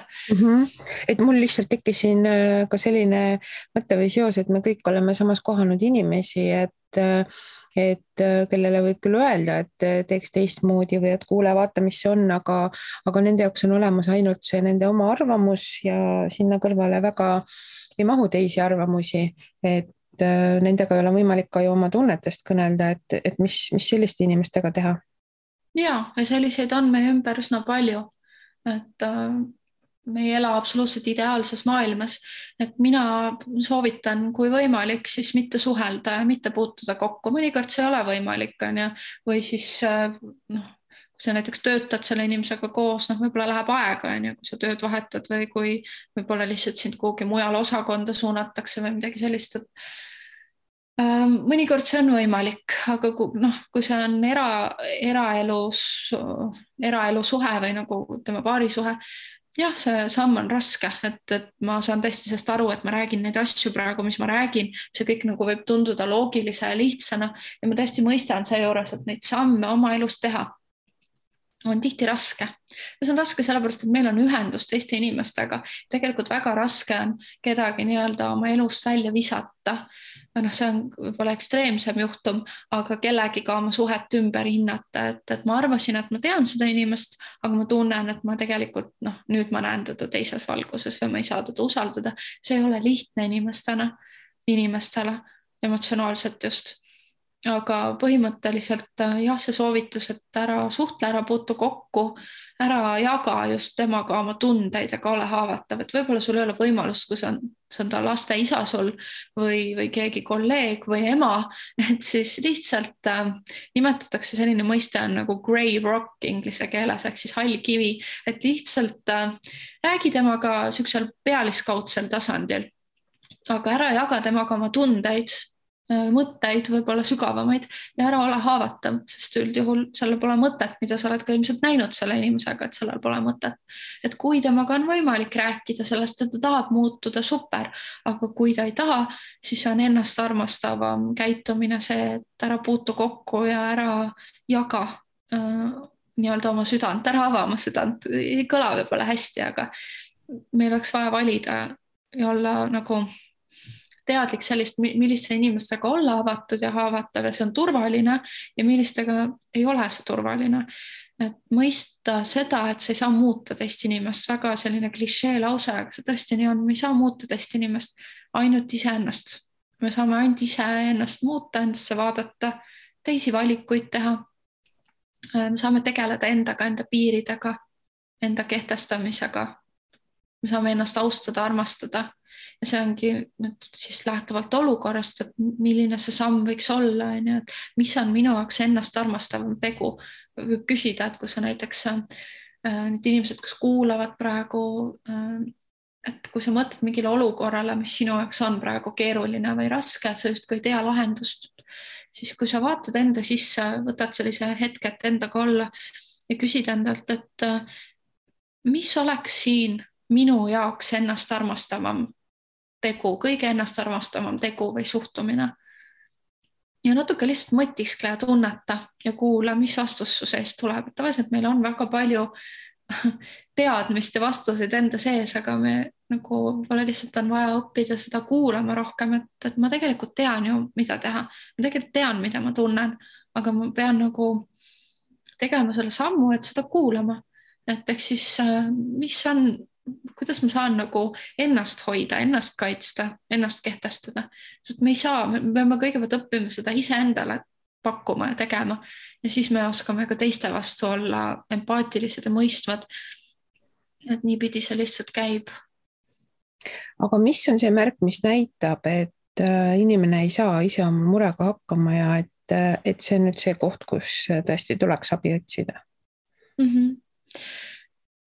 Et mul lihtsalt tekkis siin ka selline mõte või seos, et me kõik oleme samas kohanud inimesi, et kellele võib küll öelda, et teeks teistmoodi või et kuule, vaata, mis see on, aga nende jaoks on olemas ainult see nende oma arvamus ja sinna kõrvale väga ei mahu teisi arvamusi, et nendega ei ole võimalik ka ju oma tunnetest kõnelda, et mis selliste inimestega teha. Ja selliseid on meie ümber üsna palju, et me ei ela absoluutselt ideaalses maailmas, et mina soovitan, kui võimalik, siis mitte suhelda ja mitte puutuda kokku. Mõnikord see ei ole võimalik, on ju, või siis kui sa näiteks töötad selle inimesega koos, võib-olla läheb aega, on ju, kui sa tööd vahetad või kui võib-olla lihtsalt sind kuhugi mujal osakonda suunatakse või midagi sellist, et mõnikord see on võimalik, aga kui see on eraelu suhe või nagu tema paarisuhe, jah, see samm on raske, et ma saan tõesti sellest aru, et ma räägin neid asju praegu, mis ma räägin, see kõik nagu võib tunduda loogilise ja lihtsana ja ma tõesti mõistan seejuures, et neid samme oma elus teha on tihti raske. Ja see on raske sellepärast, et meil on ühendus teiste inimestega. Tegelikult väga raske on kedagi nii-öelda oma elust välja visata. See on võib-olla ekstreemsem juhtum, aga kellegiga oma suhet ümber hinnata, et ma arvasin, et ma tean seda inimest, aga ma tunnen, et ma tegelikult nüüd ma näen teda teises valguses või ma ei saa teda usaldada. See ei ole lihtne inimestele emotsionaalselt just. Aga põhimõtteliselt jah, see soovitus, et ära suhtle, ära puutu kokku, ära jaga just temaga oma tundeid, aga ole haavatav, et võib-olla sul ei ole võimalust, kui see on ta laste isa sul või keegi kolleeg või ema, et siis lihtsalt nimetatakse selline mõiste on nagu grey rock inglise keeles, ehk siis hall kivi, et lihtsalt räägi temaga siuksel pealiskaudsel tasandil, aga ära jaga temaga oma tundeid, mõtteid, võib-olla sügavamaid ja ära ole haavatav, sest üldjuhul sellel pole mõtet, mida sa oled ka ilmselt näinud selle inimesega, et sellel pole mõtet. Et kui temaga on võimalik rääkida sellest, et ta tahab muutuda, super, aga kui ta ei taha, siis on ennast armastavam käitumine see, et ära puutu kokku ja ära jaga nii-öelda oma südant, ära ava oma südant, ei kõla võib-olla hästi, aga meil oleks vaja valida ja olla nagu teadlik sellist, milliste inimestega olla avatud ja haavatav ja see on turvaline ja millistega ei ole see turvaline. Et mõista seda, et sa ei saa muuta teist inimest, väga selline klišee lause, aga see tõesti nii on, me ei saa muuta teist inimest, ainult iseennast. Me saame ainult iseennast muuta, endasse vaadata, teisi valikuid teha. Me saame tegeleda endaga, enda piiridega, enda kehtestamisega. Me saame ennast austada, armastada. Ja see ongi siis lähtuvalt olukorrast, et milline see samm võiks olla, et mis on minu jaoks ennast armastavam tegu. Võib küsida, et kui sa näiteks need inimesed, kes kuulavad praegu, et kui sa mõtled mingile olukorrale, mis sinu jaoks on praegu keeruline või raske, et sa justkui ei tea lahendust, siis kui sa vaatad enda sisse, võtad sellise hetke, et endaga olla ja küsid endalt, et mis oleks siin minu jaoks ennast armastavam tegu, kõige ennast armastavam tegu või suhtumine. Ja natuke lihtsalt mõtiskle ja tunneta ja kuula, mis vastus su seest tuleb. Tavaliselt meil on väga palju teadmist ja vastuseid enda sees, aga me nagu võib-olla lihtsalt on vaja õppida seda kuulama rohkem, et ma tegelikult tean ju, mida teha. Ma tegelikult tean, mida ma tunnen, aga ma pean nagu tegema selle sammu, et seda kuulama. Et ehk siis, kuidas ma saan nagu ennast hoida, ennast kaitsta, ennast kehtestada. Sest me ei saa, me peame kõigepealt õppima seda iseendale pakkuma ja tegema. Ja siis me oskame ka teiste vastu olla empaatilised ja mõistvad. Et niipidi see lihtsalt käib. Aga mis on see märk, mis näitab, et inimene ei saa ise oma murega hakkama ja et see on nüüd see koht, kus tõesti tuleks abi otsida?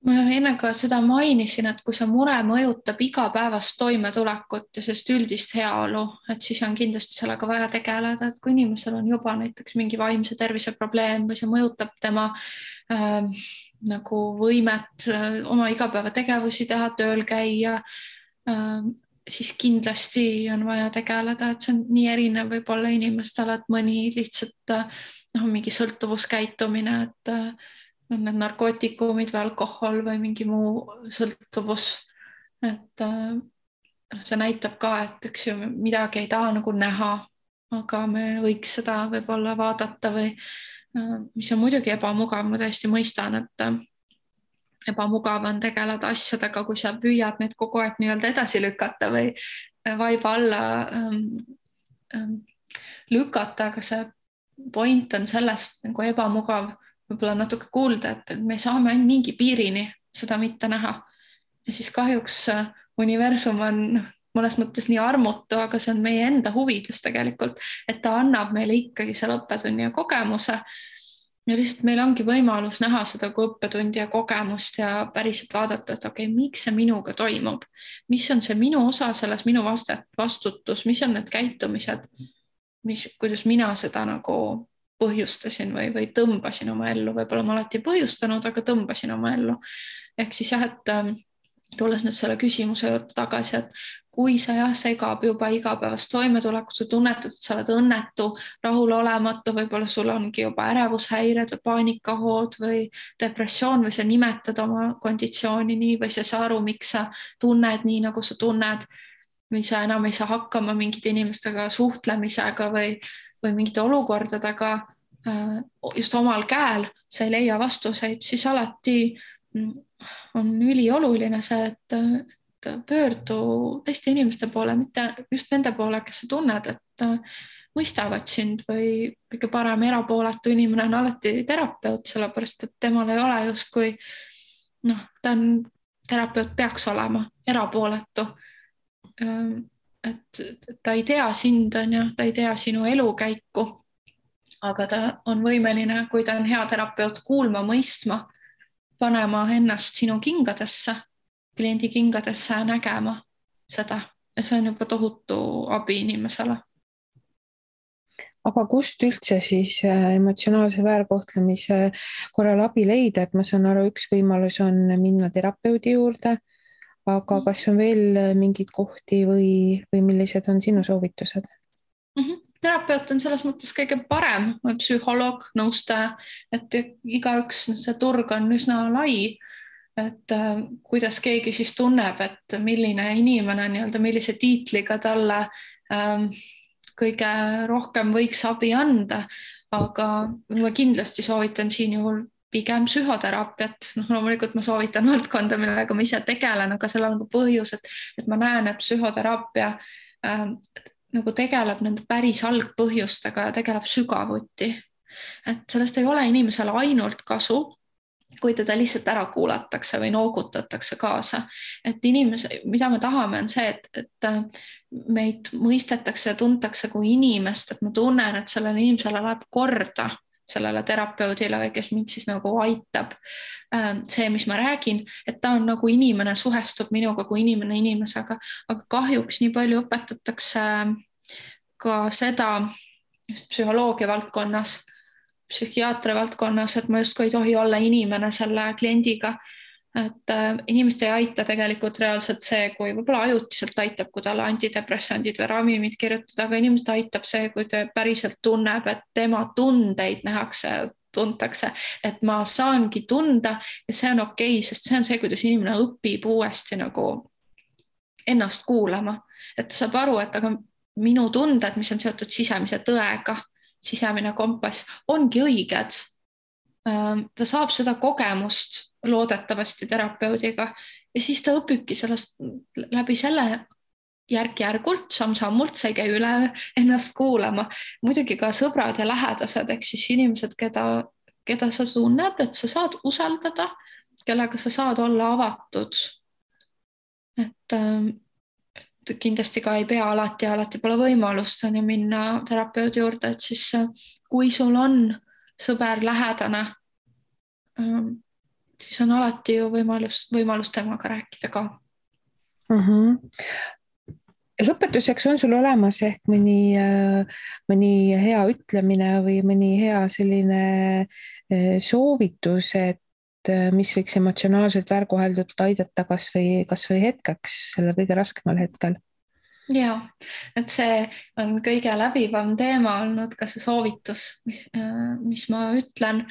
ma enne ka seda mainisin, et kui see mure mõjutab igapäevast toimetulekut ja sellist üldist heaolu, et siis on kindlasti sellega vaja tegeleda, et kui inimesel on juba näiteks mingi vaimse tervise probleem või see mõjutab tema nagu võimet oma igapäevategevusi teha, tööl käia, siis kindlasti on vaja tegeleda, et see on nii erinev võib-olla inimestele, et mõni lihtsalt mingi sõltuvuskäitumine, et on need narkootikumid või alkohol või mingi muu sõltuvus. Et see näitab ka, et üks ju midagi ei taha nagu näha, aga me võiks seda võib-olla vaadata või mis on muidugi ebamugav, ma täiesti mõistan, et ebamugav on tegeleda asjadega, kui sa püüad neid kogu aeg nii-öelda edasi lükata või vaiba alla lükata, aga see point on selles nagu ebamugav võib-olla natuke kuulda, et me saame ainult mingi piirini seda mitte näha. Ja siis kahjuks universum on mõnes mõttes nii armutu, aga see on meie enda huvides tegelikult, et ta annab meile ikkagi selle õppetunni ja kogemuse. Ja lihtsalt meil ongi võimalus näha seda kui õppetundi ja kogemust ja päriselt vaadata, et okei, miks see minuga toimub? Mis on see minu osa selles, minu vastutus, mis on need käitumised, kuidas mina seda nagu põhjustasin või tõmbasin oma ellu, võib-olla ma alati põhjustanud, aga tõmbasin oma ellu. Ehk siis jah, et tulles nüüd selle küsimuse juurde tagasi, et kui sa segab juba igapäevast toimetulekut, sa tunnetad, et sa oled õnnetu, rahulolematu, võib-olla sul ongi juba ärevushäired või paanikahood või depressioon või sa nimetad oma konditsiooni nii või sa ei saa aru, miks sa tunned nii, nagu sa tunned või sa enam ei saa hakkama mingite inimestega suhtlemisega või mingite olukordadega just omal käel, sa ei leia vastuseid, siis alati on ülioluline see, et pöördu teiste inimeste poole, mitte just nende poole, kes sa tunned, et mõistavad sind või kõige parem erapooletu inimene on alati terapeut, sellepärast et temal ei ole justkui, ta on, terapeut peaks olema erapooletu. Et ta ei tea sind, ta ei tea sinu elukäiku, aga ta on võimeline, kui ta on hea terapeut, kuulma, mõistma, panema ennast sinu kingadesse, kliendi kingadesse ja nägema seda. Ja see on juba tohutu abi inimesele. Aga kust üldse siis emotsionaalse väärkohtlemise korral abi leida, et ma saan aru, üks võimalus on minna terapeudi juurde, aga kas on veel mingeid kohti või millised on sinu soovitused? Terapeut on selles mõttes kõige parem, psühholoog, nõustaja, et igaüks, see turg on üsna lai, et kuidas keegi siis tunneb, et milline inimene nii-öelda, millise tiitliga talle kõige rohkem võiks abi anda, aga ma kindlasti soovitan siin juhul pigem psühhoteraapiat. Loomulikult ma soovitan valdkonda, millega ma ise tegelen, aga sellel on ka põhjus, et ma näen, et psühhoteraapia nagu tegeleb nende päris algpõhjustega ja tegeleb sügavuti. Et sellest ei ole inimesele ainult kasu, kui teda lihtsalt ära kuulatakse või noogutatakse kaasa. Et mida me tahame, on see, et meid mõistetakse ja tuntakse kui inimest, et ma tunnen, et sellele inimesele läheb korda, sellele terapeudile või kes mind siis nagu aitab. See, mis ma räägin, et ta on nagu inimene, suhestub minuga kui inimene inimesega, aga kahjuks nii palju õpetatakse ka seda just psühholoogia valdkonnas, psühhiaatria valdkonnas, et ma justkui ei tohi olla inimene selle kliendiga. Et inimest ei aita tegelikult reaalselt see, kui võib-olla ajutiselt aitab, kui talle antidepressandid või ravimid kirjutada, aga inimest aitab see, kui ta päriselt tunneb, et tema tundeid nähakse, tuntakse, et ma saangi tunda ja see on okei, sest see on see, kuidas inimene õpib uuesti nagu ennast kuulama, et ta saab aru, et aga minu tunded, mis on seotud sisemise tõega, sisemine kompass, ongi õiged. Ta saab seda kogemust loodetavasti terapeudiga ja siis ta õpibki sellest läbi selle järk-järgult, samm-sammult, sa ei käi üle ennast kuulama. Muidugi ka sõbrad ja lähedased, ehk siis inimesed, keda sa tunned, et sa saad usaldada, kellega sa saad olla avatud. Et kindlasti ka ei pea alati pole võimalust minna terapeudi juurde, et siis kui sul on sõber lähedane, siis on alati ju võimalus temaga rääkida ka. Lõpetuseks on sul olemas ehk mõni hea ütlemine või mõni hea selline soovitus, et mis võiks emotsionaalselt väärkoheldult aidata kas või hetkeks, sellel kõige raskemal hetkel? Ja, et see on kõige läbivam teema olnud, ka see soovitus, mis ma ütlen.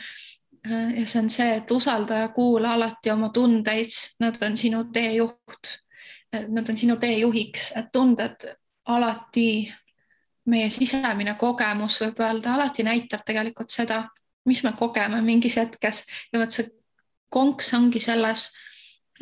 Ja see on see, et usalda ja kuula alati oma tundeid, nad on sinu teejuht. Nad on sinu teejuhiks, et tunded alati, meie sisemine kogemus võib öelda, alati näitab tegelikult seda, mis me kogeme mingis hetkes. Ja võt see konks ongi selles,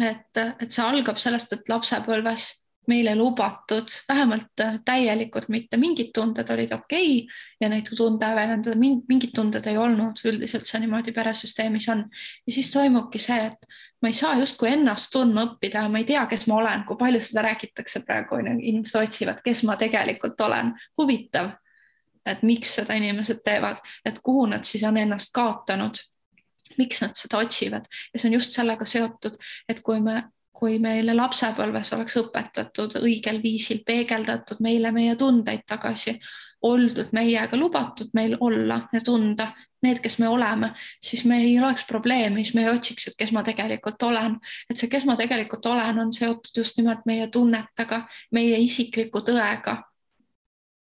et see algab sellest, et lapsepõlves meile lubatud, vähemalt täielikult mitte, mingid tunded olid okei ja neid tunde väljendada, mingid tunded ei olnud, üldiselt see niimoodi peresüsteemis on. Ja siis toimubki see, et ma ei saa justkui ennast tundma õppida, ma ei tea, kes ma olen, kui palju seda räägitakse praegu, inimesed otsivad, kes ma tegelikult olen. Huvitav, et miks seda inimesed teevad, et kuhu nad siis on ennast kaotanud, miks nad seda otsivad. Ja see on just sellega seotud, et kui meile lapsepõlves oleks õpetatud õigel viisil, peegeldatud meile meie tundeid tagasi, oldud meiega, lubatud meil olla ja tunda need, kes me oleme, siis me ei oleks probleemi, siis me ei otsiks, et kes ma tegelikult olen. Et see, kes ma tegelikult olen, on seotud just nimelt meie tunnetega, meie isikliku tõega.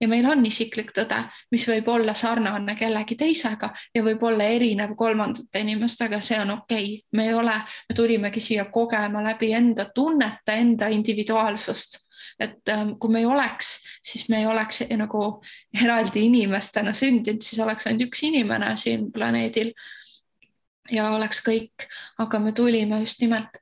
Ja meil on isiklik tõde, mis võib olla sarnane kellegi teisega ja võib olla erinev kolmandate inimestega, see on okei. Me tulimegi siia kogema läbi enda tunnete, enda individuaalsust. Et kui me ei oleks, siis me ei oleks nagu eraldi inimestena sündinud, siis oleks ainult üks inimene siin planeedil ja oleks kõik, aga me tulime just nimelt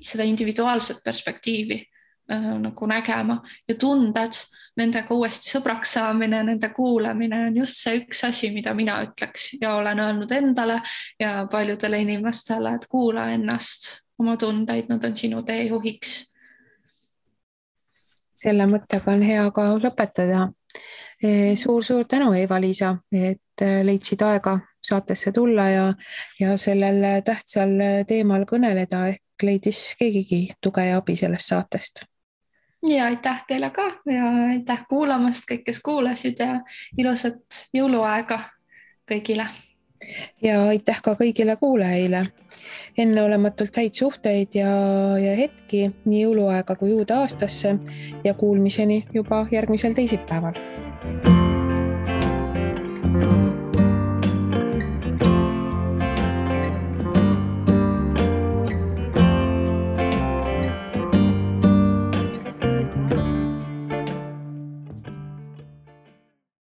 seda individuaalset perspektiivi nagu nägema ja tunded, nendega uuesti sõbraks saamine, nende kuulamine on just see üks asi, mida mina ütleks ja olen öelnud endale ja paljudele inimestele, et kuula ennast, oma tundeid, nad on sinu teejuhiks. Selle mõttega on hea ka lõpetada. Suur tänu, Eva-Liisa, et leidsid aega saatesse tulla ja sellel tähtsal teemal kõneleda, ehk leidis keegigi tuge ja abi sellest saatest. Ja aitäh teile ka ja aitäh kuulamast kõik, kes kuulasid ja ilusat jõuluaega kõigile. Ja aitäh ka kõigile kuulajaile. Enneolematult häid suhteid ja hetki nii jõuluaega kui uude aastasse ja kuulmiseni juba järgmisel teisipäeval.